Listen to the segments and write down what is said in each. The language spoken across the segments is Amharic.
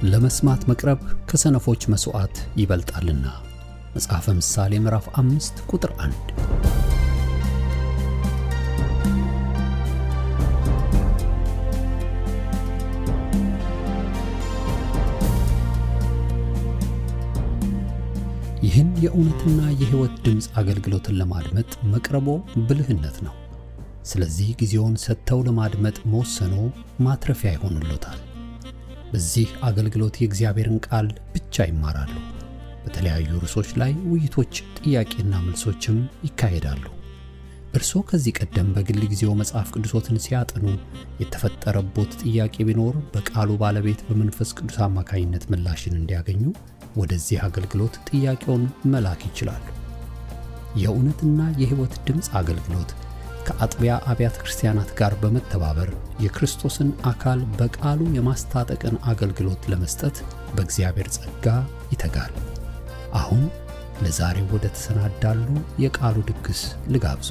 ለመስማት መቅረብ ከሰነፎች መስዋዕት ይበልጣልና። መጽሐፈ ምሳሌ ምዕራፍ 5 ቁጥር 1። ይህን የእውነትና የሕይወት ድምጽ አገልግሎትን ለማድመጥ መቅረቦ ብልህነት ነው። ስለዚህ ጊዜውን ሰጥተው ለማድመጥ መወሰኖ ማትረፊያ ይሆንልዎታል። በዚህ አገልግሎት የእግዚአብሔርን ቃል ብቻ ይማራሉ። በተለያዩ ርዕሶች ላይ ውይይቶች፣ ጥያቄና መልሶችም ይካሄዳሉ። እርስዎ ከዚህ ቀደም በግል ጊዜው መጽሐፍ ቅዱሶትን ሲያጠኑ የተፈጠረቦት ጥያቄ ቢኖር በቃሉ ባለቤት በመንፈስ ቅዱስ አማካኝነት ምላሽን እንዲያገኙ ወደዚህ አገልግሎት ጥያቄውን መላክ ይችላሉ። የእውነትና የሕይወት ድምጽ አገልግሎት ከአጥቢያ አብያተ ክርስቲያናት ጋር በመተባበር የክርስቶስን አካል በቃሉ የማስታጠቅን አገልግሎት ለመስጠት በእግዚአብሔር ጸጋ ይተጋል። አሁን ለዛሬው ወደ ተሰናዳሉ የቃሉ ድግስ ልጋብዞ።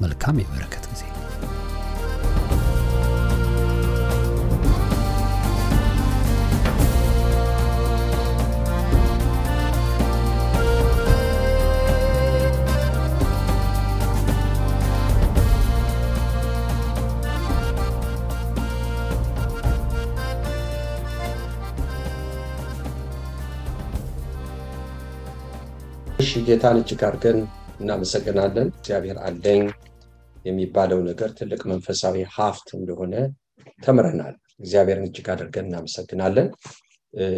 መልካም የበረከት ጊዜ። ጌታን እጅግ አድርገን እናመሰግናለን። እግዚአብሔር አለኝ የሚባለው ነገር ትልቅ መንፈሳዊ ሀብት እንደሆነ ተምረናል። እግዚአብሔርን እጅግ አድርገን እናመሰግናለን።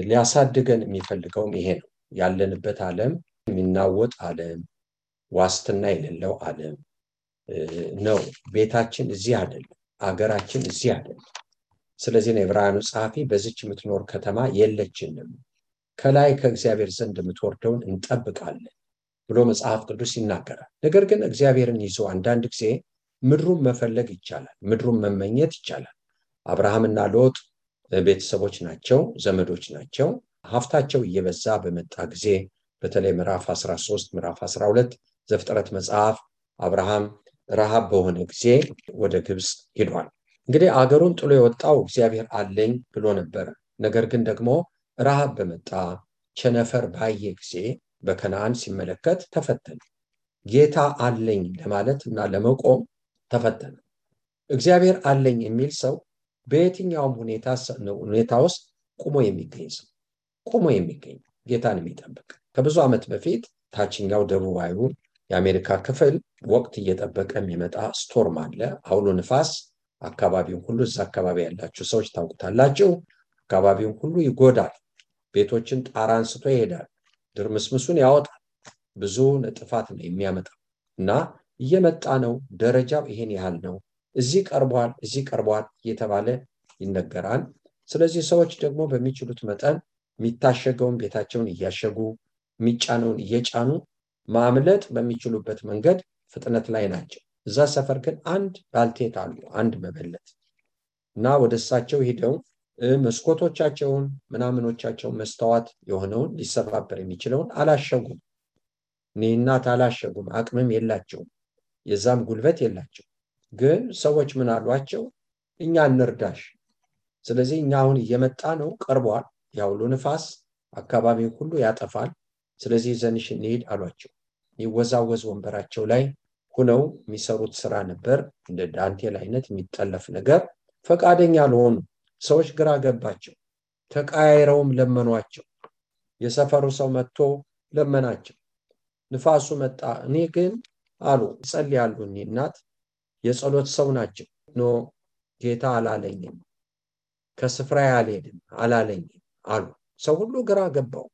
ሊያሳድገን የሚፈልገውም ይሄ ነው። ያለንበት ዓለም የሚናወጥ ዓለም፣ ዋስትና የሌለው ዓለም ነው። ቤታችን እዚህ አይደለም፣ አገራችን እዚህ አይደለም። ስለዚህ ነው ዕብራውያኑ ጸሐፊ በዚች የምትኖር ከተማ የለችንም፣ ከላይ ከእግዚአብሔር ዘንድ የምትወርደውን እንጠብቃለን ብሎ መጽሐፍ ቅዱስ ይናገራል። ነገር ግን እግዚአብሔርን ይዞ አንዳንድ ጊዜ ምድሩን መፈለግ ይቻላል፣ ምድሩን መመኘት ይቻላል። አብርሃምና ሎጥ ቤተሰቦች ናቸው፣ ዘመዶች ናቸው። ሀብታቸው እየበዛ በመጣ ጊዜ በተለይ ምዕራፍ 13 ምዕራፍ 12 ዘፍጥረት መጽሐፍ አብርሃም ረሃብ በሆነ ጊዜ ወደ ግብጽ ሄዷል። እንግዲህ አገሩን ጥሎ የወጣው እግዚአብሔር አለኝ ብሎ ነበር። ነገር ግን ደግሞ ረሃብ በመጣ ቸነፈር ባየ ጊዜ በከነዓን ሲመለከት ተፈተነ። ጌታ አለኝ ለማለት እና ለመቆም ተፈተነ። እግዚአብሔር አለኝ የሚል ሰው በየትኛውም ሁኔታ ውስጥ ቆሞ የሚገኝ ሰው፣ ቆሞ የሚገኝ ጌታን የሚጠብቅ። ከብዙ ዓመት በፊት ታችኛው ደቡባዊ የአሜሪካ ክፍል ወቅት እየጠበቀ የሚመጣ ስቶርም አለ፣ አውሎ ንፋስ። አካባቢውን ሁሉ እዛ አካባቢ ያላችሁ ሰዎች ታውቁታላችሁ። አካባቢውን ሁሉ ይጎዳል። ቤቶችን ጣራ አንስቶ ይሄዳል፣ ድርምስምሱን ያወጣል። ብዙ ጥፋት ነው የሚያመጣው እና እየመጣ ነው። ደረጃው ይሄን ያህል ነው፣ እዚህ ቀርቧል፣ እዚህ ቀርቧል እየተባለ ይነገራል። ስለዚህ ሰዎች ደግሞ በሚችሉት መጠን የሚታሸገውን ቤታቸውን እያሸጉ የሚጫነውን እየጫኑ ማምለጥ በሚችሉበት መንገድ ፍጥነት ላይ ናቸው። እዛ ሰፈር ግን አንድ ባልቴት አሉ፣ አንድ መበለት እና ወደ እሳቸው ሄደው መስኮቶቻቸውን ምናምኖቻቸውን መስተዋት የሆነውን ሊሰባበር የሚችለውን አላሸጉም። እናት አላሸጉም፣ አቅምም የላቸውም፣ የዛም ጉልበት የላቸው። ግን ሰዎች ምን አሏቸው? እኛ እንርዳሽ፣ ስለዚህ እኛ አሁን እየመጣ ነው፣ ቀርቧል፣ ያውሎ ንፋስ አካባቢውን ሁሉ ያጠፋል፣ ስለዚህ ዘንሽ እንሂድ አሏቸው። ይወዛወዝ ወንበራቸው ላይ ሆነው የሚሰሩት ስራ ነበር፣ እንደ ዳንቴል አይነት የሚጠለፍ ነገር። ፈቃደኛ ለሆኑ ሰዎች ግራ ገባቸው። ተቃይረውም ለመኗቸው። የሰፈሩ ሰው መጥቶ ለመናቸው። ንፋሱ መጣ። እኔ ግን አሉ ይጸልያሉ። እናት የጸሎት ሰው ናቸው። ኖ ጌታ አላለኝም፣ ከስፍራ አልሄድም አላለኝም አሉ። ሰው ሁሉ ግራ ገባው።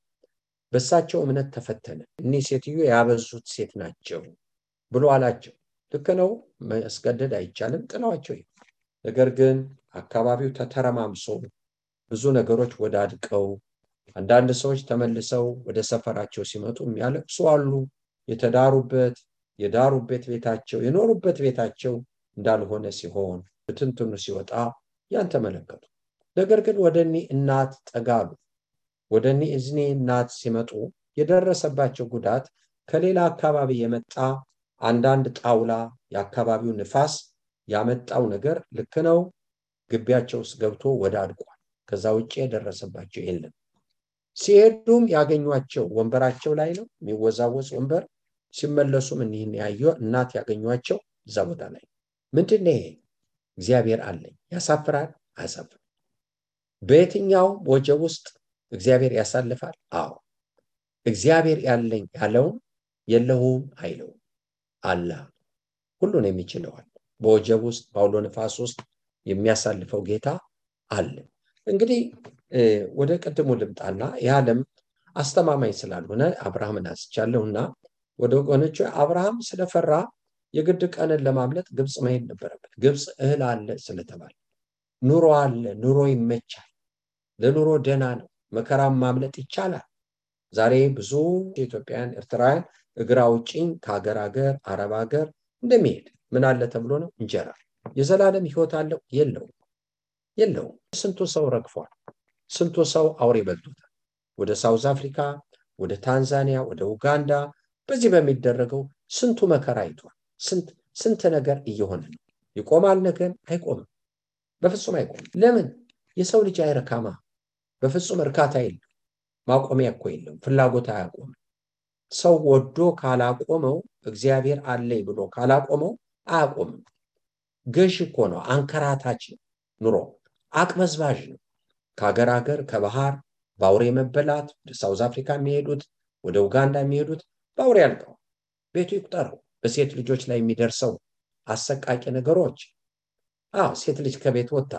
በሳቸው እምነት ተፈተነ። እኒህ ሴትዮ ያበዙት ሴት ናቸው ብሎ አላቸው። ልክ ነው፣ ማስገደድ አይቻልም፣ ጥለዋቸው። ነገር ግን አካባቢው ተተረማምሶ ብዙ ነገሮች ወዳድቀው አንዳንድ ሰዎች ተመልሰው ወደ ሰፈራቸው ሲመጡ የሚያለቅሱ አሉ። የተዳሩበት የዳሩበት ቤታቸው የኖሩበት ቤታቸው እንዳልሆነ ሲሆን ብትንትኑ ሲወጣ ያን ተመለከቱ። ነገር ግን ወደኒ እናት ጠጋሉ። ወደኒ እዝኒ እናት ሲመጡ የደረሰባቸው ጉዳት ከሌላ አካባቢ የመጣ አንዳንድ ጣውላ የአካባቢው ንፋስ ያመጣው ነገር ልክ ነው፣ ግቢያቸው ውስጥ ገብቶ ወዳድቋል። ከዛ ውጪ የደረሰባቸው የለም። ሲሄዱም ያገኟቸው ወንበራቸው ላይ ነው የሚወዛወዝ ወንበር። ሲመለሱም እኒህን ያዩ እናት ያገኟቸው እዛ ቦታ ላይ። ምንድነው ይሄ? እግዚአብሔር አለኝ። ያሳፍራል? አያሳፍርም። በየትኛው ወጀብ ውስጥ እግዚአብሔር ያሳልፋል? አዎ። እግዚአብሔር ያለኝ ያለውን የለውም አይለውም። አላህ ሁሉን የሚችለዋል። በወጀብ ውስጥ በአውሎ ነፋስ ውስጥ የሚያሳልፈው ጌታ አለ። እንግዲህ ወደ ቅድሙ ልምጣና የዓለም አስተማማኝ ስላልሆነ አብርሃምን አንስቻለሁና ወደ ወገኖቹ አብርሃም ስለፈራ የግድ ቀንን ለማምለጥ ግብፅ መሄድ ነበረበት። ግብፅ እህል አለ ስለተባለ ኑሮ አለ፣ ኑሮ ይመቻል፣ ለኑሮ ደህና ነው፣ መከራም ማምለጥ ይቻላል። ዛሬ ብዙ ኢትዮጵያውያን ኤርትራውያን እግር አውጪኝ ከሀገር ሀገር አረብ ሀገር እንደሚሄድ ምን አለ ተብሎ ነው? እንጀራ። የዘላለም ህይወት አለው? የለውም። ስንቱ ሰው ረግፏል። ስንቱ ሰው አውሬ በልቶታል። ወደ ሳውዝ አፍሪካ፣ ወደ ታንዛኒያ፣ ወደ ኡጋንዳ በዚህ በሚደረገው ስንቱ መከራ አይቷል። ስንት ነገር እየሆነ ነው። ይቆማል? ነገር አይቆምም። በፍጹም አይቆምም። ለምን? የሰው ልጅ አይረካማ። በፍጹም እርካታ የለም። ማቆሚያ እኮ የለም። ፍላጎት አያቆምም። ሰው ወዶ ካላቆመው፣ እግዚአብሔር አለኝ ብሎ ካላቆመው አያቆምም። ገዥ እኮ ነው። አንከራታች ኑሮ አቅበዝባዥ ነው። ከሀገር ሀገር ከባህር በአውሬ መበላት ወደ ሳውዝ አፍሪካ የሚሄዱት ወደ ኡጋንዳ የሚሄዱት በአውሬ ያልቀው። ቤቱ ይቁጠረው። በሴት ልጆች ላይ የሚደርሰው አሰቃቂ ነገሮች። ሴት ልጅ ከቤት ወጣ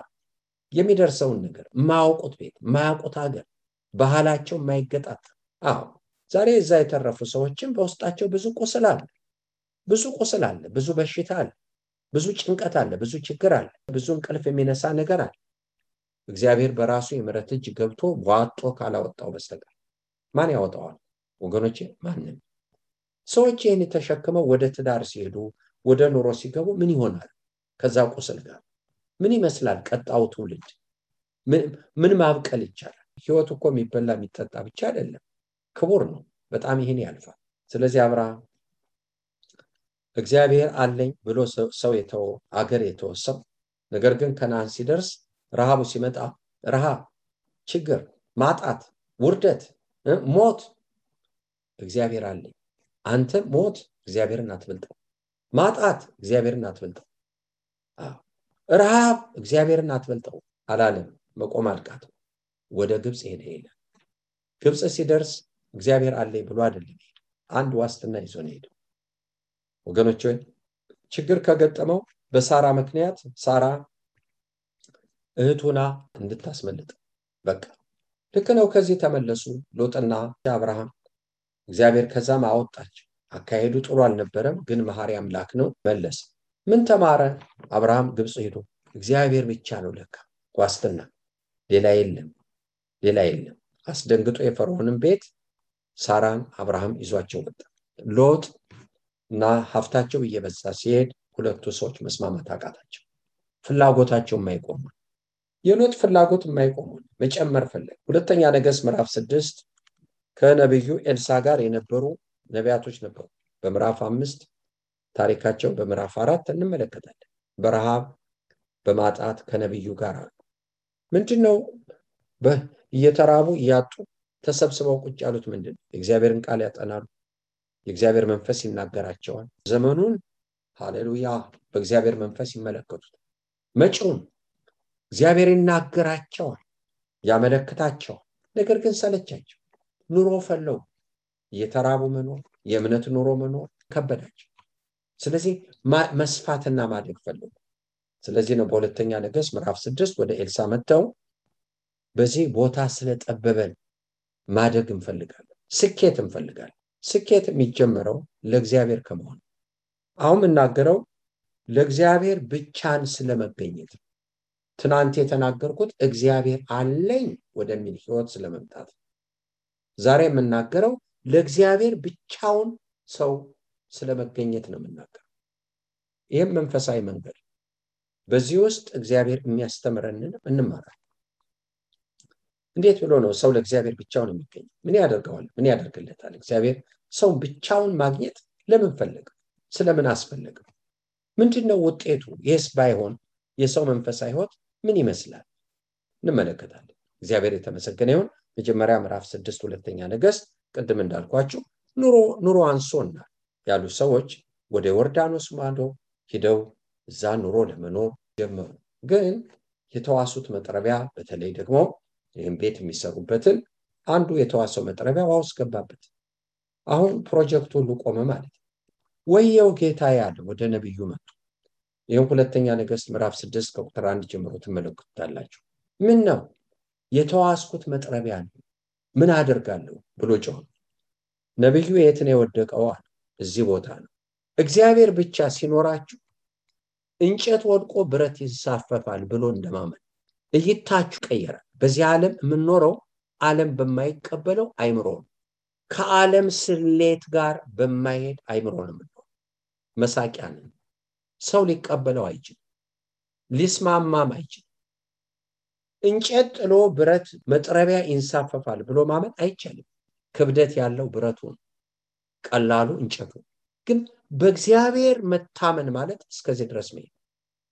የሚደርሰውን ነገር ማያውቁት ቤት ማያውቁት ሀገር ባህላቸው የማይገጣጥ። ዛሬ እዛ የተረፉ ሰዎችም በውስጣቸው ብዙ ቁስል አለ፣ ብዙ በሽታ አለ፣ ብዙ ጭንቀት አለ፣ ብዙ ችግር አለ፣ ብዙ እንቅልፍ የሚነሳ ነገር አለ። እግዚአብሔር በራሱ የምሕረት እጅ ገብቶ ዋጦ ካላወጣው በስተቀር ማን ያወጣዋል? ወገኖቼ ማንም። ሰዎች ይህን ተሸክመው ወደ ትዳር ሲሄዱ ወደ ኑሮ ሲገቡ ምን ይሆናል? ከዛ ቁስል ጋር ምን ይመስላል ቀጣው ትውልድ? ምን ማብቀል ይቻላል? ህይወት እኮ የሚበላ የሚጠጣ ብቻ አይደለም፣ ክቡር ነው በጣም። ይህን ያልፋል። ስለዚህ አብርሃም እግዚአብሔር አለኝ ብሎ ሰው የተወ አገር የተወሰው፣ ነገር ግን ከነዓን ሲደርስ ረሃቡ ሲመጣ ረሃብ፣ ችግር፣ ማጣት፣ ውርደት፣ ሞት፣ እግዚአብሔር አለኝ። አንተ ሞት እግዚአብሔርን አትበልጠው፣ ማጣት እግዚአብሔርን አትበልጠው፣ ረሃብ እግዚአብሔርን አትበልጠው አላለም። መቆም አልቃተው ወደ ግብፅ ሄደ ይላል። ግብፅ ሲደርስ እግዚአብሔር አለኝ ብሎ አይደለም፣ አንድ ዋስትና ይዞ ነው ሄደው። ወገኖች ሆይ ችግር ከገጠመው በሳራ ምክንያት ሳራ እህቱና እንድታስመልጥ በቃ ልክ ነው። ከዚህ ተመለሱ ሎጥና አብርሃም። እግዚአብሔር ከዛም አወጣቸው። አካሄዱ ጥሩ አልነበረም፣ ግን መሐሪ አምላክ ነው። መለሰ። ምን ተማረ አብርሃም? ግብፅ ሄዶ እግዚአብሔር ብቻ ነው ለካ ዋስትና፣ ሌላ የለም። አስደንግጦ የፈርዖንን ቤት ሳራን አብርሃም ይዟቸው ወጣ። ሎጥ እና ሀብታቸው እየበዛ ሲሄድ ሁለቱ ሰዎች መስማማት አቃታቸው። ፍላጎታቸው የማይቆም የሎጥ ፍላጎት የማይቆም መጨመር ፈለገ። ሁለተኛ ነገሥት ምዕራፍ 6 ከነብዩ ኤልሳ ጋር የነበሩ ነቢያቶች ነበሩ። በምዕራፍ 5 ታሪካቸው በምዕራፍ 4 እንመለከታለን። በረሃብ በማጣት ከነብዩ ጋር አሉ። ምንድነው እየተራቡ እያጡ ተሰብስበው ቁጭ ያሉት? ምንድነው? የእግዚአብሔርን ቃል ያጠናሉ። የእግዚአብሔር መንፈስ ይናገራቸዋል። ዘመኑን ሃሌሉያ በእግዚአብሔር መንፈስ ይመለከቱት። መጪውን እግዚአብሔር ይናገራቸዋል፣ ያመለክታቸዋል። ነገር ግን ሰለቻቸው። ኑሮ ፈለው እየተራቡ መኖር፣ የእምነት ኑሮ መኖር ከበዳቸው። ስለዚህ መስፋትና ማደግ ፈለጉ። ስለዚህ ነው በሁለተኛ ነገሥት ምዕራፍ 6 ወደ ኤልሳ መጥተው በዚህ ቦታ ስለጠበበን ማደግ እንፈልጋለን፣ ስኬት እንፈልጋለን። ስኬት የሚጀምረው ለእግዚአብሔር ከመሆን። አሁን የምናገረው ለእግዚአብሔር ብቻን ስለመገኘት። ትናንት የተናገርኩት እግዚአብሔር አለኝ ወደሚል ህይወት ስለመምጣት። ዛሬ የምናገረው ለእግዚአብሔር ብቻውን ሰው ስለመገኘት ነው የምናገረው። ይህም መንፈሳዊ መንገድ። በዚህ ውስጥ እግዚአብሔር የሚያስተምረንን እንማራለን። እንዴት ብሎ ነው ሰው ለእግዚአብሔር ብቻውን የሚገኝ? ምን ያደርገዋል? ምን ያደርግለታል? እግዚአብሔር ሰው ብቻውን ማግኘት ለምን ፈለገ? ስለምን አስፈለገ? ምንድነው ውጤቱ? ይህስ ባይሆን የሰው መንፈሳዊ ህይወት ምን ይመስላል? እንመለከታለን። እግዚአብሔር የተመሰገነ ይሁን። መጀመሪያ ምዕራፍ 6 ሁለተኛ ነገሥት ቅድም እንዳልኳችሁ ኑሮ አንሶና ያሉ ሰዎች ወደ ዮርዳኖስ ማዶ ሄደው እዛ ኑሮ ለመኖር ጀመሩ። ግን የተዋሱት መጥረቢያ በተለይ ደግሞ ይህን ቤት የሚሰሩበትን አንዱ የተዋሰው መጥረቢያ ውሃ ውስጥ ገባበት። አሁን ፕሮጀክቱ ሁሉ ቆመ ማለት ነው። ወየው ጌታ ያለ ወደ ነብዩ መጡ። ይሄን ሁለተኛ ነገሥት ምዕራፍ 6 ከቁጥር 1 ጀምሮ ትመለከቱታላችሁ። ምን ነው የተዋስኩት መጥረቢያ ነው፣ ምን አደርጋለሁ ብሎ ጮኸ። ነብዩ የት ነው የወደቀው? እዚህ ቦታ ነው። እግዚአብሔር ብቻ ሲኖራችሁ እንጨት ወድቆ ብረት ይሳፈፋል ብሎ እንደማመን እይታችሁ ቀየራል። በዚህ ዓለም የምንኖረው ዓለም በማይቀበለው አይምሮ ነው። ከዓለም ስሌት ጋር በማይሄድ አይምሮ ነው የምንኖረው። መሳቂያ ነን። ሰው ሊቀበለው አይችልም፣ ሊስማማም አይችልም። እንጨት ጥሎ ብረት መጥረቢያ ይንሳፈፋል ብሎ ማመን አይቻልም። ክብደት ያለው ብረቱ ነው፣ ቀላሉ እንጨቱ። ግን በእግዚአብሔር መታመን ማለት እስከዚህ ድረስ ነው።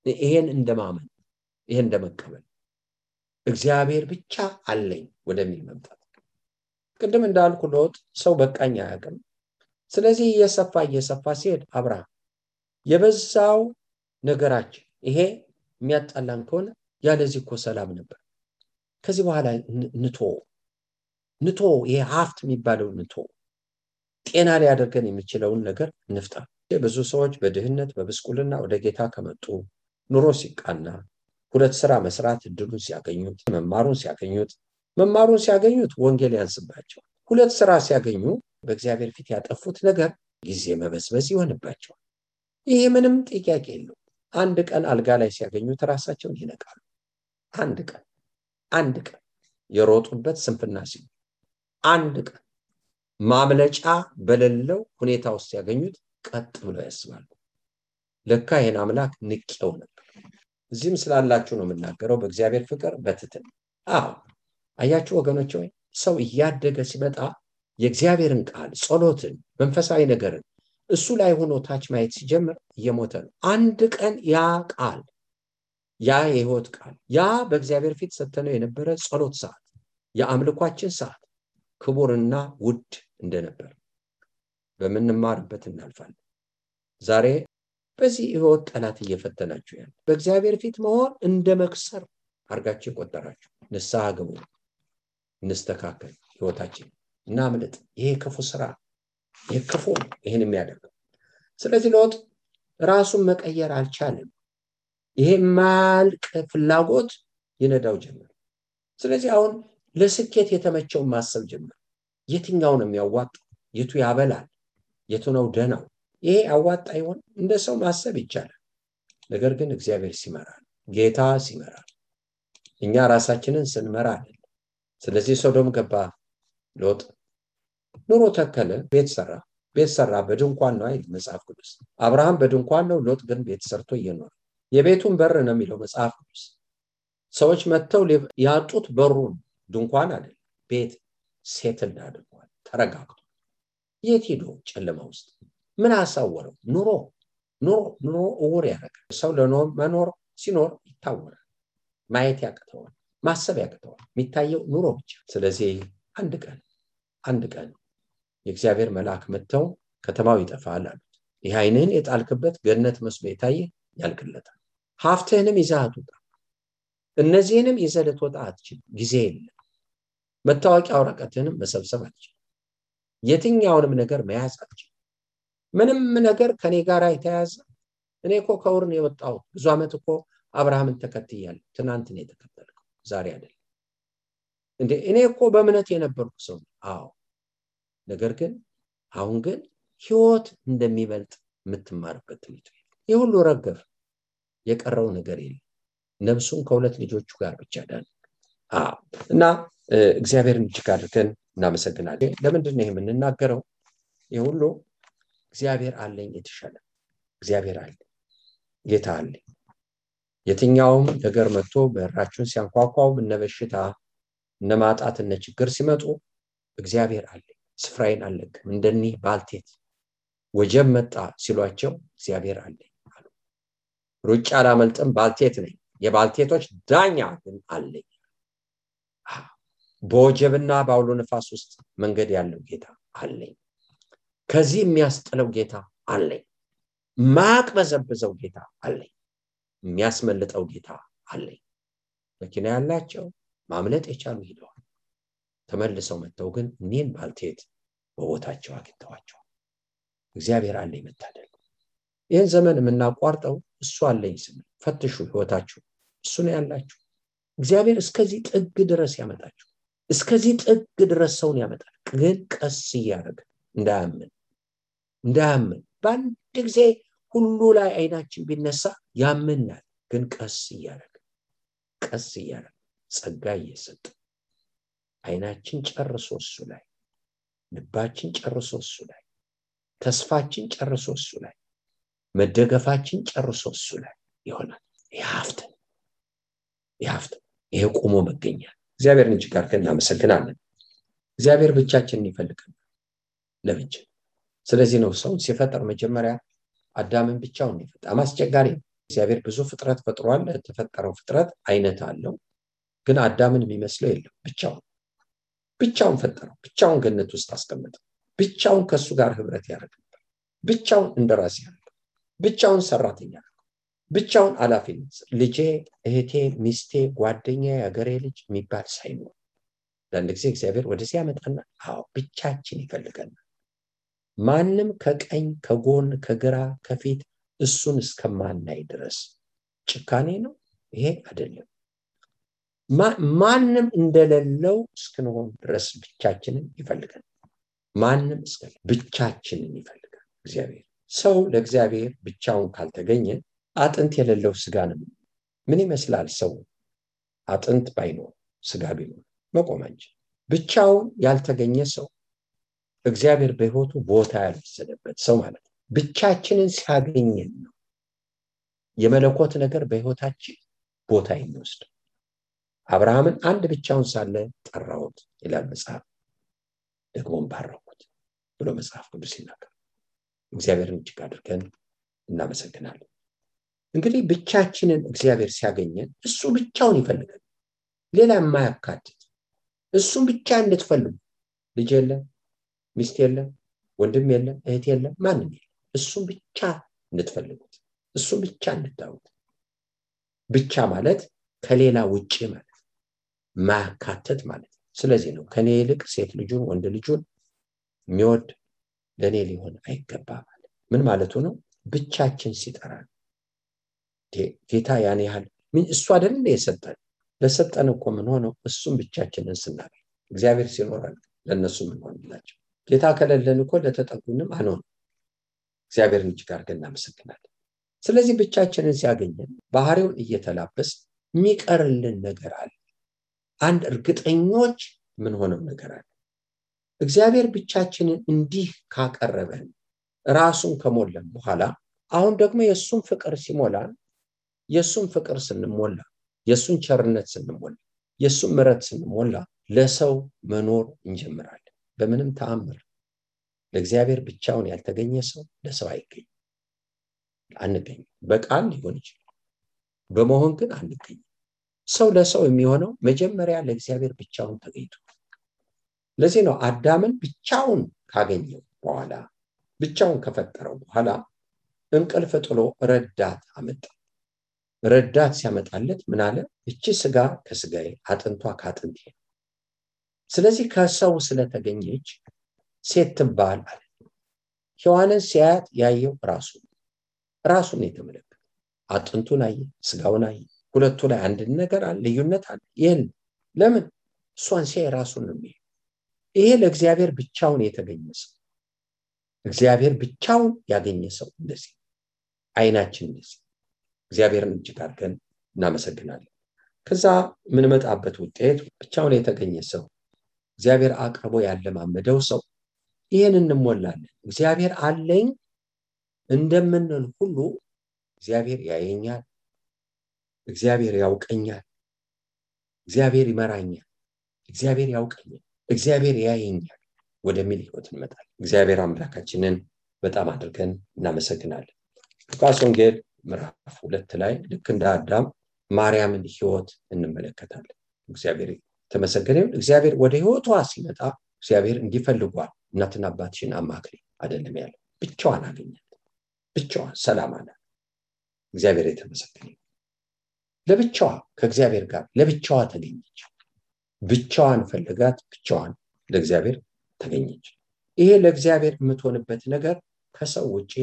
ይሄን እንደማመን፣ ይሄን እንደመቀበል እግዚአብሔር ብቻ አለኝ ወደሚል መምጣት። ቅድም እንዳልኩ ሎጥ ሰው በቃኝ አያውቅም። ስለዚህ እየሰፋ ሲሄድ አብርሃም የበዛው ነገራችን ይሄ የሚያጣላን ከሆነ ያለዚህ እኮ ሰላም ነበር። ከዚህ በኋላ ንቶ ይሄ ሀብት የሚባለው ንቶ ጤና ሊያደርገን የሚችለውን ነገር እንፍታ። ብዙ ሰዎች በድህነት በብስቁልና ወደ ጌታ ከመጡ ኑሮ ሲቃና ሁለት ስራ መስራት እድሉን ሲያገኙት መማሩን ሲያገኙት ወንጌል ያንስባቸው። ሁለት ስራ ሲያገኙ በእግዚአብሔር ፊት ያጠፉት ነገር ጊዜ መበዝበዝ ይሆንባቸው። ይሄ ምንም ጥያቄ የለው። አንድ ቀን አልጋ ላይ ሲያገኙት ራሳቸውን ይነቃሉ። አንድ ቀን የሮጡበት ስንፍና ሲሉ አንድ ቀን ማምለጫ በሌለው ሁኔታ ውስጥ ሲያገኙት ቀጥ ብለው ያስባሉ። ለካ ይሄን አምላክ ንቄው ነበር። እዚህም ስላላችሁ ነው የምናገረው በእግዚአብሔር ፍቅር በትህትና። አያችሁ ወገኖች ሆይ ሰው እያደገ ሲመጣ የእግዚአብሔርን ቃል ጸሎትን መንፈሳዊ ነገርን እሱ ላይ ሆኖ ታች ማየት ሲጀምር እየሞተ ነው። አንድ ቀን ያ ቃል ያ የሕይወት ቃል ያ በእግዚአብሔር ፊት ሰተነው የነበረ ጸሎት ሰዓት የአምልኳችን ሰዓት ክቡርና ውድ እንደነበር በመንማርበት እናልፋለን። ዛሬ በዚህ ሕይወት ጠላት እየፈተናችሁ ያለ በእግዚአብሔር ፊት መሆን እንደ መክሰር አርጋችሁ ቆጠራችሁ። ንስሐ ግቡ፣ እንስተካከል፣ ሕይወታችን እናምልጥ። ይሄ ክፉ ስራ የክፉ ይሄን የሚያደርገው። ስለዚህ ሎጥ ራሱን መቀየር አልቻለም። ይሄ ማልቅ ፍላጎት ይነዳው ጀመር። ስለዚህ አሁን ለስኬት የተመቸው ማሰብ ጀመር። የትኛው ነው የሚያዋጣው? የቱ ያበላል? የቱ ነው ደናው? ይሄ አዋጣ ይሆን? እንደ ሰው ማሰብ ይቻላል። ነገር ግን እግዚአብሔር ሲመራ፣ ጌታ ሲመራ፣ እኛ ራሳችንን ስንመራ አይደል። ስለዚህ ሶዶም ገባ ሎጥ፣ ኑሮ ተከለ፣ ቤት ሰራ። በድንኳን ነው አይደል መጽሐፍ ቅዱስ። አብርሃም በድንኳን ነው፣ ሎጥ ግን ቤት ሰርቶ እየኖረ የቤቱን በር ነው የሚለው መጽሐፍ ቅዱስ። ሰዎች መጥተው ያጡት በሩን ድንኳን አይደል ቤት ሴትል አድርጓል። ተረጋግቶ የት ሄዶ ጨለማ ውስጥ ምን አሳወረው? ኑሮ እውር ያደርጋል። ሰው ለመኖር ሲኖር ይታወራል፣ ማየት ያቅተዋል፣ ማሰብ ያቅተዋል። የሚታየው ኑሮ ብቻ። ስለዚህ አንድ ቀን የእግዚአብሔር መልአክ መጥተው ከተማው ይጠፋል አሉት። ይህ ዓይንህን የጣልክበት ገነት መስሎ የታየ ያልቅለታል። ሀብትህንም ይዘህ አትውጣ፣ እነዚህንም ይዘህ ልትወጣ አትችልም፣ ጊዜ የለም። መታወቂያ ወረቀትህንም መሰብሰብ አትችልም፣ የትኛውንም ነገር መያዝ አትችልም። ምንም ነገር ከኔ ጋር የተያዘ እኔ እኮ ከውር ነው የወጣሁት። ብዙ ዓመት እኮ አብርሃምን ተከትያለሁ። ትናንት ነው የተከተልከው፣ ዛሬ አይደለም እንዴ? እኔ እኮ በእምነት የነበርኩ ሰው። አዎ፣ ነገር ግን አሁን ግን ሕይወት እንደሚበልጥ የምትማርበት ትምህርት ቤት። ይህ ሁሉ ረገፍ፣ የቀረው ነገር የለም። ነፍሱን ከሁለት ልጆቹ ጋር ብቻ ዳን። እና እግዚአብሔርን እጅግ አድርገን እናመሰግናለን። ለምንድን ነው የምንናገረው? ይህ ሁሉ እግዚአብሔር አለኝ፣ የተሻለ እግዚአብሔር አለኝ፣ ጌታ አለኝ። የትኛውም ነገር መጥቶ በራችሁን ሲያንኳኳው፣ እነ በሽታ እነ ማጣት እነ ችግር ሲመጡ እግዚአብሔር አለኝ፣ ስፍራዬን አልለቅም። እንደኒህ ባልቴት ወጀብ መጣ ሲሏቸው እግዚአብሔር አለኝ አሉ። ሩጫ አላመልጥም፣ ባልቴት ነኝ፣ የባልቴቶች ዳኛ ግን አለኝ። በወጀብና በአውሎ ነፋስ ውስጥ መንገድ ያለው ጌታ አለኝ። ከዚህ የሚያስጥለው ጌታ አለኝ። ማቅበዘብዘው ጌታ አለኝ። የሚያስመልጠው ጌታ አለኝ። መኪና ያላቸው ማምለጥ የቻሉ ሄደዋል። ተመልሰው መጥተው ግን እኔን ባልቴት በቦታቸው አግኝተዋቸው እግዚአብሔር አለኝ መታደል። ይህን ዘመን የምናቋርጠው እሱ አለኝ ስንል ፈትሹ ህይወታችሁ እሱ ነው ያላችሁ። እግዚአብሔር እስከዚህ ጥግ ድረስ ያመጣችሁ፣ እስከዚህ ጥግ ድረስ ሰውን ያመጣል። ግን ቀስ እያደረገ እንዳያምን በአንድ ጊዜ ሁሉ ላይ አይናችን ቢነሳ ያምናል። ግን ቀስ እያደረገ ጸጋ እየሰጠ አይናችን ጨርሶ እሱ ላይ፣ ልባችን ጨርሶ እሱ ላይ፣ ተስፋችን ጨርሶ እሱ ላይ፣ መደገፋችን ጨርሶ እሱ ላይ ይሆናል። ያፍተ ይሄ ቆሞ መገኛ እግዚአብሔርን እጅግ አድርገን እናመሰግናለን። እግዚአብሔር ብቻችንን ይፈልጋል ለብቻ። ስለዚህ ነው ሰው ሲፈጠር መጀመሪያ አዳምን ብቻውን ይፈጠር። አስቸጋሪ እግዚአብሔር ብዙ ፍጥረት ፈጥሯል። የተፈጠረው ፍጥረት አይነት አለው። ግን አዳምን የሚመስለው የለም። ብቻውን ፈጠረው። ብቻውን ገነት ውስጥ አስቀመጠው። ብቻውን ከሱ ጋር ህብረት ያደርግ ነበር። ብቻውን እንደራስ ያደርግ፣ ብቻውን ሰራተኛ ያደርግ፣ ብቻውን አላፊነት ልጄ፣ እህቴ፣ ሚስቴ፣ ጓደኛ፣ ያገሬ ልጅ የሚባል ሳይኖር ለአንድ ጊዜ እግዚአብሔር ወደዚህ ያመጣና ብቻችን ይፈልገናል። ማንም ከቀኝ ከጎን ከግራ ከፊት እሱን እስከማናይ ድረስ ጭካኔ ነው ይሄ አይደለም። ማንም እንደሌለው እስክንሆን ድረስ ብቻችንን ይፈልጋል። ማንም ብቻችንን ይፈልጋል እግዚአብሔር። ሰው ለእግዚአብሔር ብቻውን ካልተገኘ አጥንት የሌለው ስጋ ነው። ምን ይመስላል ሰው አጥንት ባይኖር ስጋ ቢኖር? መቆም አንችልም። ብቻውን ያልተገኘ ሰው እግዚአብሔር በህይወቱ ቦታ ያልወሰደበት ሰው ማለት ነው። ብቻችንን ሲያገኘን ነው የመለኮት ነገር በህይወታችን ቦታ የሚወስድ። አብርሃምን አንድ ብቻውን ሳለ ጠራሁት ይላል መጽሐፍ፣ ደግሞም ባረኩት ብሎ መጽሐፍ ቅዱስ ይናገራል። እግዚአብሔርን እጅግ አድርገን እናመሰግናለን። እንግዲህ ብቻችንን እግዚአብሔር ሲያገኘን እሱ ብቻውን ይፈልጋል፣ ሌላ የማያካትት እሱን ብቻ እንድትፈልጉ። ልጅ የለም፣ ሚስት የለም፣ ወንድም የለም፣ እህት የለም፣ ማንም የለም። እሱን ብቻ እንድትፈልጉት፣ እሱን ብቻ እንድታዩት። ብቻ ማለት ከሌላ ውጪ ማለት ማያካትት ማለት። ስለዚህ ነው ከኔ ይልቅ ሴት ልጁን ወንድ ልጁን የሚወድ ለኔ ሊሆን አይገባም ማለት። ምን ማለቱ ነው? ብቻችን ሲጠራን ጌታ ያን ያህል እሱ አይደል የሰጠን። ለሰጠን እኮ ምን ሆነው እሱን ብቻችንን ስናገኝ እግዚአብሔር ሲኖረን ለነሱ ምን ሆነላቸው። ጌታ ከሌለን እኮ ለተጠጉንም አንሆን። እግዚአብሔርን እጅግ አድርገን እናመሰግናለን። ስለዚህ ብቻችንን ሲያገኘን ባህሪውን እየተላበስ የሚቀርልን ነገር አለ። አንድ እርግጠኞች ምን ሆነው ነገር አለ። እግዚአብሔር ብቻችንን እንዲህ ካቀረበን ራሱን ከሞላን በኋላ አሁን ደግሞ የሱን ፍቅር ሲሞላን፣ የሱን ፍቅር ስንሞላ፣ የሱን ቸርነት ስንሞላ፣ የሱን ምሕረት ስንሞላ ለሰው መኖር እንጀምራለን። በምንም ተአምር ለእግዚአብሔር ብቻውን ያልተገኘ ሰው ለሰው አይገኝም። አንገኝም። በቃል ሊሆን ይችላል፣ በመሆን ግን አንገኝም። ሰው ለሰው የሚሆነው መጀመሪያ ለእግዚአብሔር ብቻውን ተገኝቶ። ለዚህ ነው አዳምን ብቻውን ካገኘው በኋላ፣ ብቻውን ከፈጠረው በኋላ እንቅልፍ ጥሎ ረዳት አመጣ። ረዳት ሲያመጣለት ምን አለ? እቺ ስጋ ከስጋዬ አጥንቷ ከአጥንቴ። ስለዚህ ከሰው ስለተገኘች ሴት ትባል አለ። ሔዋንን ሲያያት ያየው ራሱን የተመለከተ አጥንቱን አየ፣ ስጋውን አየ። ሁለቱ ላይ አንድ ነገር አለ፣ ልዩነት አለ። ይሄን ለምን? እሷን ሲያይ ራሱን ነው የሚያየው። ይሄ ለእግዚአብሔር ብቻውን የተገኘ ሰው፣ እግዚአብሔር ብቻውን ያገኘ ሰው እንደዚህ አይናችን እንደዚህ። እግዚአብሔርን እጅግ አድርገን እናመሰግናለን። ከዛ ምን መጣበት ውጤት ብቻውን የተገኘ ሰው፣ እግዚአብሔር አቅርቦ ያለማመደው ሰው ይሄን እንሞላለን። እግዚአብሔር አለኝ እንደምንል ሁሉ እግዚአብሔር ያየኛል፣ እግዚአብሔር ያውቀኛል፣ እግዚአብሔር ይመራኛል፣ እግዚአብሔር ያውቀኛል፣ እግዚአብሔር ያየኛል ወደሚል ህይወት እንመጣለን። እግዚአብሔር አምላካችንን በጣም አድርገን እናመሰግናለን። ሉቃስ ወንጌል ምዕራፍ 2 ላይ ልክ እንደ አዳም ማርያምን ህይወት እንመለከታለን። እግዚአብሔር ተመሰገነ ይሁን። እግዚአብሔር ወደ ህይወቷ ሲመጣ እግዚአብሔር እንዲፈልጓል እናትና አባትሽን አማክሪ አይደለም ያለው። ብቻዋን አገኛት፣ ብቻዋን ሰላም አላት። እግዚአብሔር የተመሰገነ ይሁን። ለብቻዋ ከእግዚአብሔር ጋር ለብቻዋ ተገኘች። ብቻዋን ፈልጋት ብቻዋን ለእግዚአብሔር ተገኘች። ይሄ ለእግዚአብሔር የምትሆንበት ነገር ከሰው ውጪ፣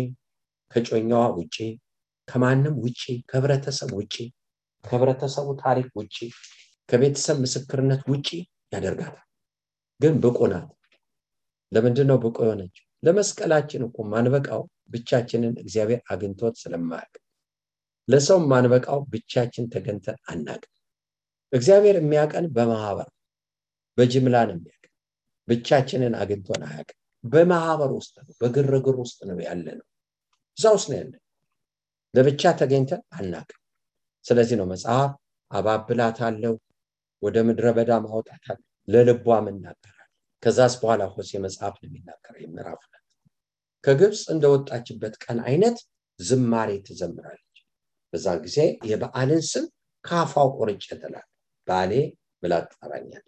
ከጮኛዋ ውጪ፣ ከማንም ውጪ፣ ከህብረተሰብ ውጪ፣ ከህብረተሰቡ ታሪክ ውጪ፣ ከቤተሰብ ምስክርነት ውጪ ያደርጋታል። ግን ብቁ ናት። ለምንድነው ብቁ የሆነች? ለመስቀላችን እኮ ማንበቃው ብቻችንን እግዚአብሔር አግኝቶት ስለማያውቅ፣ ለሰው ማንበቃው ብቻችን ተገንተን አናውቅም። እግዚአብሔር የሚያቀን በማህበር በጅምላ ነው የሚያቀን። ብቻችንን አግኝቶን አያውቅም። በማህበር ውስጥ ነው፣ በግርግር ውስጥ ነው ያለነው። እዛ ውስጥ ነው ያለነው። ለብቻ ተገኝተን አናውቅም። ስለዚህ ነው መጽሐፍ አባብላታለሁ፣ ወደ ምድረ በዳ ማውጣታለሁ፣ ለልቧም እናገራለሁ። ከዛስ በኋላ ሆሴ መጽሐፍ ነው የሚናገረው ምዕራፍ 2 ከግብጽ እንደወጣችበት ቀን አይነት ዝማሬ ትዘምራለች። በዛን ጊዜ የበዓልን ስም ካፋው ቆርጬ ትላለች። ባሌ ብላ ትጠራኛለች።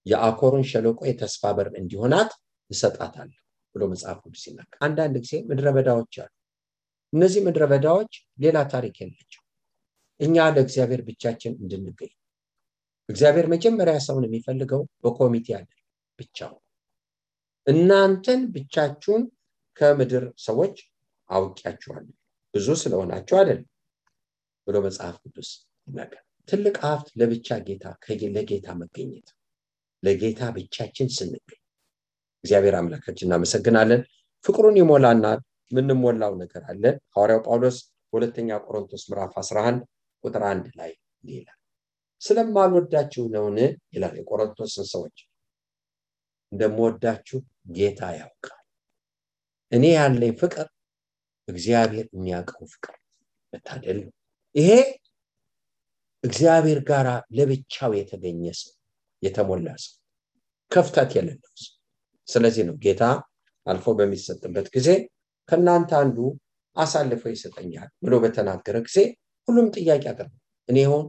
የአኮርን ሸለቆ የተስፋ በር እንዲሆናት እሰጣታለሁ ብሎ መጽሐፍ ቅዱስ ይናገራል። አንዳንድ ጊዜ ምድረ በዳዎች አሉ። እነዚህ ምድረ በዳዎች ሌላ ታሪክ የላቸው። እኛ ለእግዚአብሔር ብቻችን እንድንገኝ እግዚአብሔር መጀመሪያ ሰውን የሚፈልገው በኮሚቴ አይደለም፣ ብቻው። እናንተን ብቻችሁን ከምድር ሰዎች አውቂያችኋለሁ ብዙ ስለሆናችሁ አይደለም ብሎ መጽሐፍ ቅዱስ ይናገራል። ትልቅ ሀብት ለብቻ ጌታ ለጌታ መገኘት፣ ለጌታ ብቻችን ስንገኝ እግዚአብሔር አምላካችን እናመሰግናለን። ፍቅሩን ይሞላናል። ምንሞላው ነገር አለ። ሐዋርያው ጳውሎስ ሁለተኛ ቆሮንቶስ ምዕራፍ 11 ቁጥር 1 ላይ ይላል፣ ስለማልወዳችሁ ነውን ይላል። የቆሮንቶስን ሰዎች እንደምወዳችሁ ጌታ ያውቃል። እኔ ያለኝ ፍቅር እግዚአብሔር የሚያውቀው ፍቅር መታደል ነው። ይሄ እግዚአብሔር ጋር ለብቻው የተገኘ ሰው፣ የተሞላ ሰው፣ ክፍተት የሌለው ሰው። ስለዚህ ነው ጌታ አልፎ በሚሰጥበት ጊዜ ከናንተ አንዱ አሳልፎ ይሰጠኛል ብሎ በተናገረ ጊዜ ሁሉም ጥያቄ አቀረበ። እኔ ሆን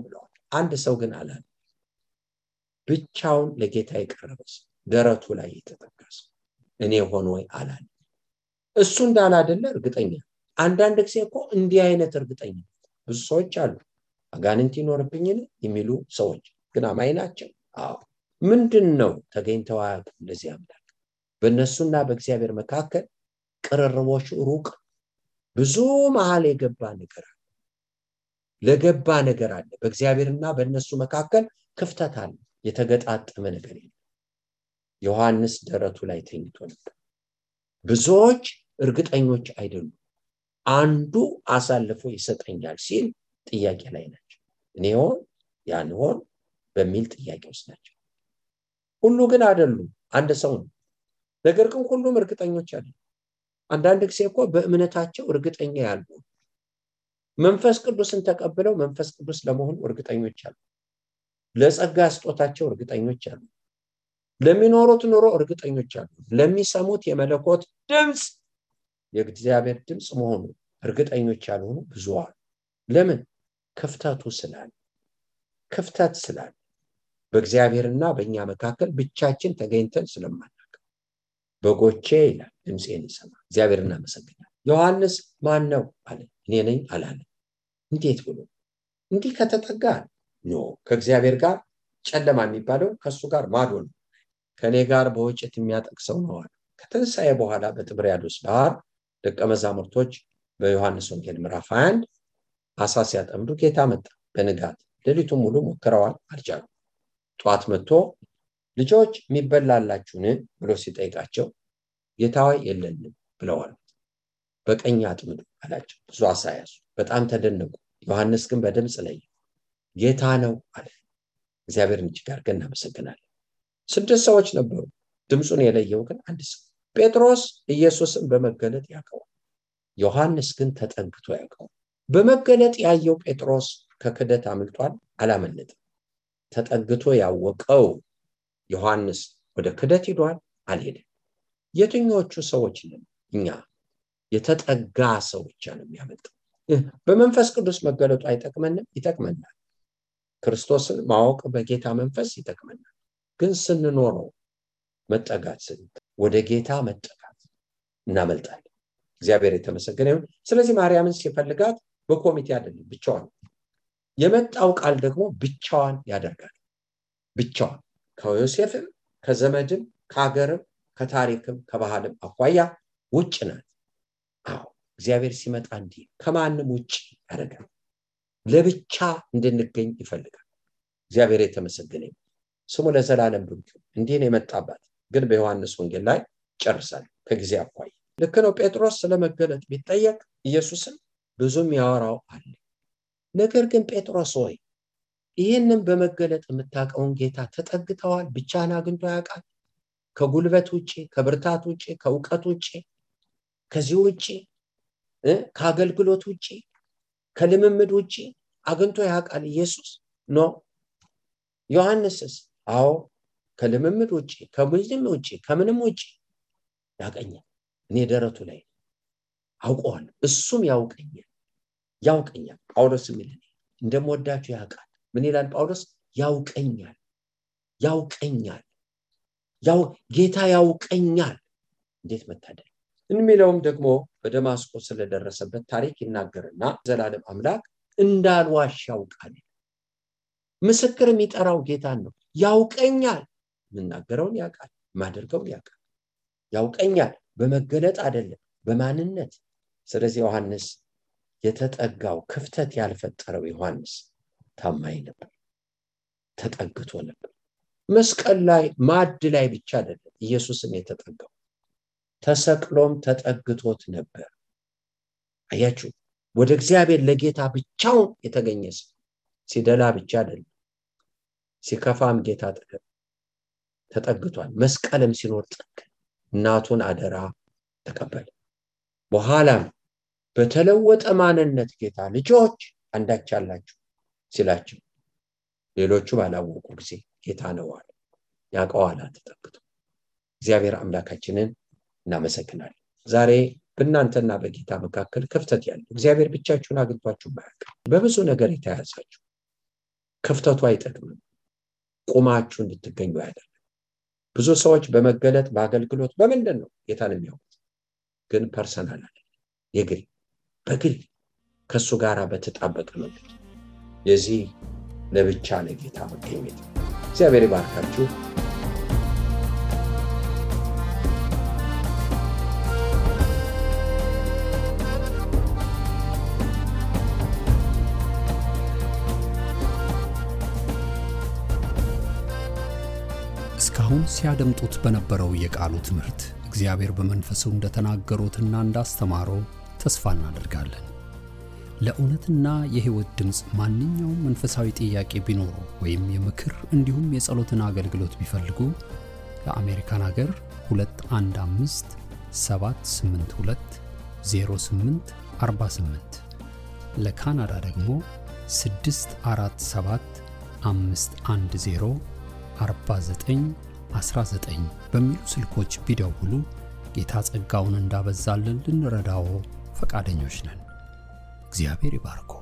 ብለዋል። አንድ ሰው ግን አላለ። ብቻውን ለጌታ የቀረበ ሰው፣ ደረቱ ላይ የተጠጋ ሰው እኔ ሆን ወይ አላለ። እሱ እንዳላደለ እርግጠኛ። አንዳንድ ጊዜ እኮ እንዲህ አይነት እርግጠኛ ብዙ ሰዎች አሉ። አጋንንት ይኖርብኝን የሚሉ ሰዎች ግን አማኝ ናቸው። አዎ። ምንድነው ተገኝተው አያውቁም። እንደዚህ አምላክ በእነሱና በእግዚአብሔር መካከል ቅርርቦሽ ሩቅ ብዙ መሃል የገባ ነገር አለ። ለገባ ነገር አለ። በእግዚአብሔርና በእነሱ መካከል ክፍተት አለ። የተገጣጠመ ነገር የለም። ዮሐንስ ደረቱ ላይ ተኝቶ ነበር። ብዙዎች እርግጠኞች አይደሉም። አንዱ አሳልፎ ይሰጠኛል ሲል ጥያቄ ላይ ናቸው። እኔ ሆን ያን ሆን በሚል ጥያቄ ውስጥ ናቸው። ሁሉ ግን አይደሉም። አንድ ሰው ነው። ነገር ግን ሁሉም እርግጠኞች አይደሉም። አንዳንድ ጊዜ እኮ በእምነታቸው እርግጠኛ ያሉ መንፈስ ቅዱስን ተቀብለው መንፈስ ቅዱስ ለመሆን እርግጠኞች አሉ። ለጸጋ ስጦታቸው እርግጠኞች አሉ። ለሚኖሩት ኑሮ እርግጠኞች አሉ። ለሚሰሙት የመለኮት ድምጽ የእግዚአብሔር ድምጽ መሆኑ እርግጠኞች ያልሆኑ ብዙ አሉ። ለምን? ክፍተቱ ስላለ። ክፍተት ስላለ በእግዚአብሔርና በእኛ መካከል ብቻችን ተገኝተን ስለማናውቅ በጎቼ ይላል ድምጼን ይሰማ። እግዚአብሔርን እናመሰግናለን። ዮሐንስ ማን ነው አለ። እኔ ነኝ አላለ። እንዴት ብሎ? እንዲህ ከተጠጋ ነው ከእግዚአብሔር ጋር ጨለማ የሚባለው ከሱ ጋር ማዶ ነው። ከኔ ጋር በወጭት የሚያጠቅሰው ነው አለ። ከተንሳኤ በኋላ በጥብርያዶስ ባህር ደቀ መዛሙርቶች በዮሐንስ ወንጌል ምዕራፍ 21 አሳ ሲያጠምዱ ጌታ መጣ። በንጋት ሌሊቱን ሙሉ ሞክረዋል፣ አልቻሉም። ጧት መጥቶ ልጆች የሚበላላችሁን ብሎ ሲጠይቃቸው ጌታ ሆይ የለንም ብለዋል። በቀኝ አጥምዱ አላቸው። ብዙ አሳ ያዙ። በጣም ተደነቁ። ዮሐንስ ግን በድምጽ ላይ ጌታ ነው አለ። እግዚአብሔርን እጅግ አድርገን እናመሰግናለን። 6 ሰዎች ነበሩ። ድምጹን የለየው ግን አንድ ሰው። ጴጥሮስ ኢየሱስን በመገለጥ ያውቀዋል። ዮሐንስ ግን ተጠግቶ ያውቀዋል። በመገለጥ ያየው ጴጥሮስ ከክደት አምልጧል፣ አላመለጠም። ተጠግቶ ያወቀው ዮሐንስ ወደ ክደት ሄዷል፣ አልሄደም። የትኞቹ ሰዎች ነን እኛ? የተጠጋ ሰው ብቻ ነው የሚያመልጠው። በመንፈስ ቅዱስ መገለጡ አይጠቅመንም? ይጠቅመናል። ክርስቶስን ማወቅ በጌታ መንፈስ ይጠቅመናል። ግን ስንኖረው መጠጋት ወደ ጌታ መጠጋት እናመልጣለን። እግዚአብሔር የተመሰገነ ይሁን። ስለዚህ ማርያምን ሲፈልጋት በኮሚቴ አይደለም፣ ብቻዋን። የመጣው ቃል ደግሞ ብቻዋን ያደርጋል። ብቻዋን ከዮሴፍም ከዘመድም ከሀገርም ከታሪክም ከባህልም አኳያ ውጭ ናት። አዎ እግዚአብሔር ሲመጣ እንዲህ ከማንም ውጭ ያደርጋል። ለብቻ እንድንገኝ ይፈልጋል። እግዚአብሔር የተመሰገነ ይሁን። ስሙ ለዘላለም ብሩክ ይሁን። እንዲህ ነው የመጣባት። ግን በዮሐንስ ወንጌል ላይ ጨርሳል ከጊዜ አኳያ። ልክ ነው። ጴጥሮስ ስለመገለጥ ቢጠየቅ ኢየሱስን ብዙም ያወራው አለ። ነገር ግን ጴጥሮስ ሆይ ይህንን በመገለጥ የምታውቀውን ጌታ ተጠግተዋል? ብቻህን አግኝቶ ያውቃል? ከጉልበት ውጪ፣ ከብርታት ውጪ፣ ከእውቀት ውጪ፣ ከዚህ ውጪ፣ ከአገልግሎት ውጪ፣ ከልምምድ ውጪ አግኝቶ ያውቃል ኢየሱስ? ኖ። ዮሐንስስ? አዎ ከልምምድ ውጪ፣ ከምንም ውጪ፣ ከምንም ውጪ ያውቀኛል። እኔ ደረቱ ላይ አውቀዋለሁ፣ እሱም ያውቀኛል። ጳውሎስ የሚል እንደምወዳችሁ ያውቃል። ምን ይላል ጳውሎስ? ያውቀኛል። ጌታ ያውቀኛል። እንዴት መታደል! የሚለውም ደግሞ በደማስቆ ስለደረሰበት ታሪክ ይናገርና ዘላለም አምላክ እንዳልዋሽ ያውቃል። ምስክር የሚጠራው ጌታን ነው። ያውቀኛል። የምናገረውን ያውቃል፣ ማደርገውን ያውቃል። ያውቀኛል በመገለጥ አይደለም፣ በማንነት። ስለዚህ ዮሐንስ የተጠጋው ክፍተት ያልፈጠረው ዮሐንስ ታማኝ ነበር፣ ተጠግቶ ነበር። መስቀል ላይ ማዕድ ላይ ብቻ አይደለም ኢየሱስን የተጠጋው፣ ተሰቅሎም ተጠግቶት ነበር። አያችሁ፣ ወደ እግዚአብሔር ለጌታ ብቻውን የተገኘ ሰው ሲደላ ብቻ አይደለም፣ ሲከፋም ጌታ ተጠግቷል። መስቀልም ሲኖር እናቱን አደራ ተቀበለ። በኋላም በተለወጠ ማንነት ጌታ ልጆች አንዳች አላችሁ ሲላቸው ሌሎቹ ባላወቁ ጊዜ ጌታ ነው አለ። ያውቀዋል ተጠግቶ። እግዚአብሔር አምላካችንን እናመሰግናለን። ዛሬ በእናንተና በጌታ መካከል ክፍተት ያለው እግዚአብሔር ብቻችሁን አግኝቷችሁ ማያውቅ በብዙ ነገር የተያዛችሁ ክፍተቱ አይጠቅምም፣ ቁማችሁ እንድትገኙ ያደርጋል። ብዙ ሰዎች በመገለጥ በአገልግሎት በምንድን ነው ጌታን የሚያውቁት? ግን ፐርሰናል አይደለም፣ በግል ከሱ ጋር በተጣበቀ መንገድ የዚህ ለብቻ ለጌታ መገኘት። እግዚአብሔር ይባርካችሁ። እስካሁን ሲያደምጡት በነበረው የቃሉ ትምህርት እግዚአብሔር በመንፈሱ እንደተናገሩትና እንዳስተማረው ተስፋ እናደርጋለን። ለእውነትና የሕይወት ድምጽ ማንኛውም መንፈሳዊ ጥያቄ ቢኖሩ ወይም የምክር እንዲሁም የጸሎትን አገልግሎት ቢፈልጉ ለአሜሪካን ሀገር 215 782 0848 ለካናዳ ደግሞ 647 510 4919 በሚሉ ስልኮች ቢደውሉ ጌታ ጸጋውን እንዳበዛልን ልንረዳው ፈቃደኞች ነን። እግዚአብሔር ይባርኮ።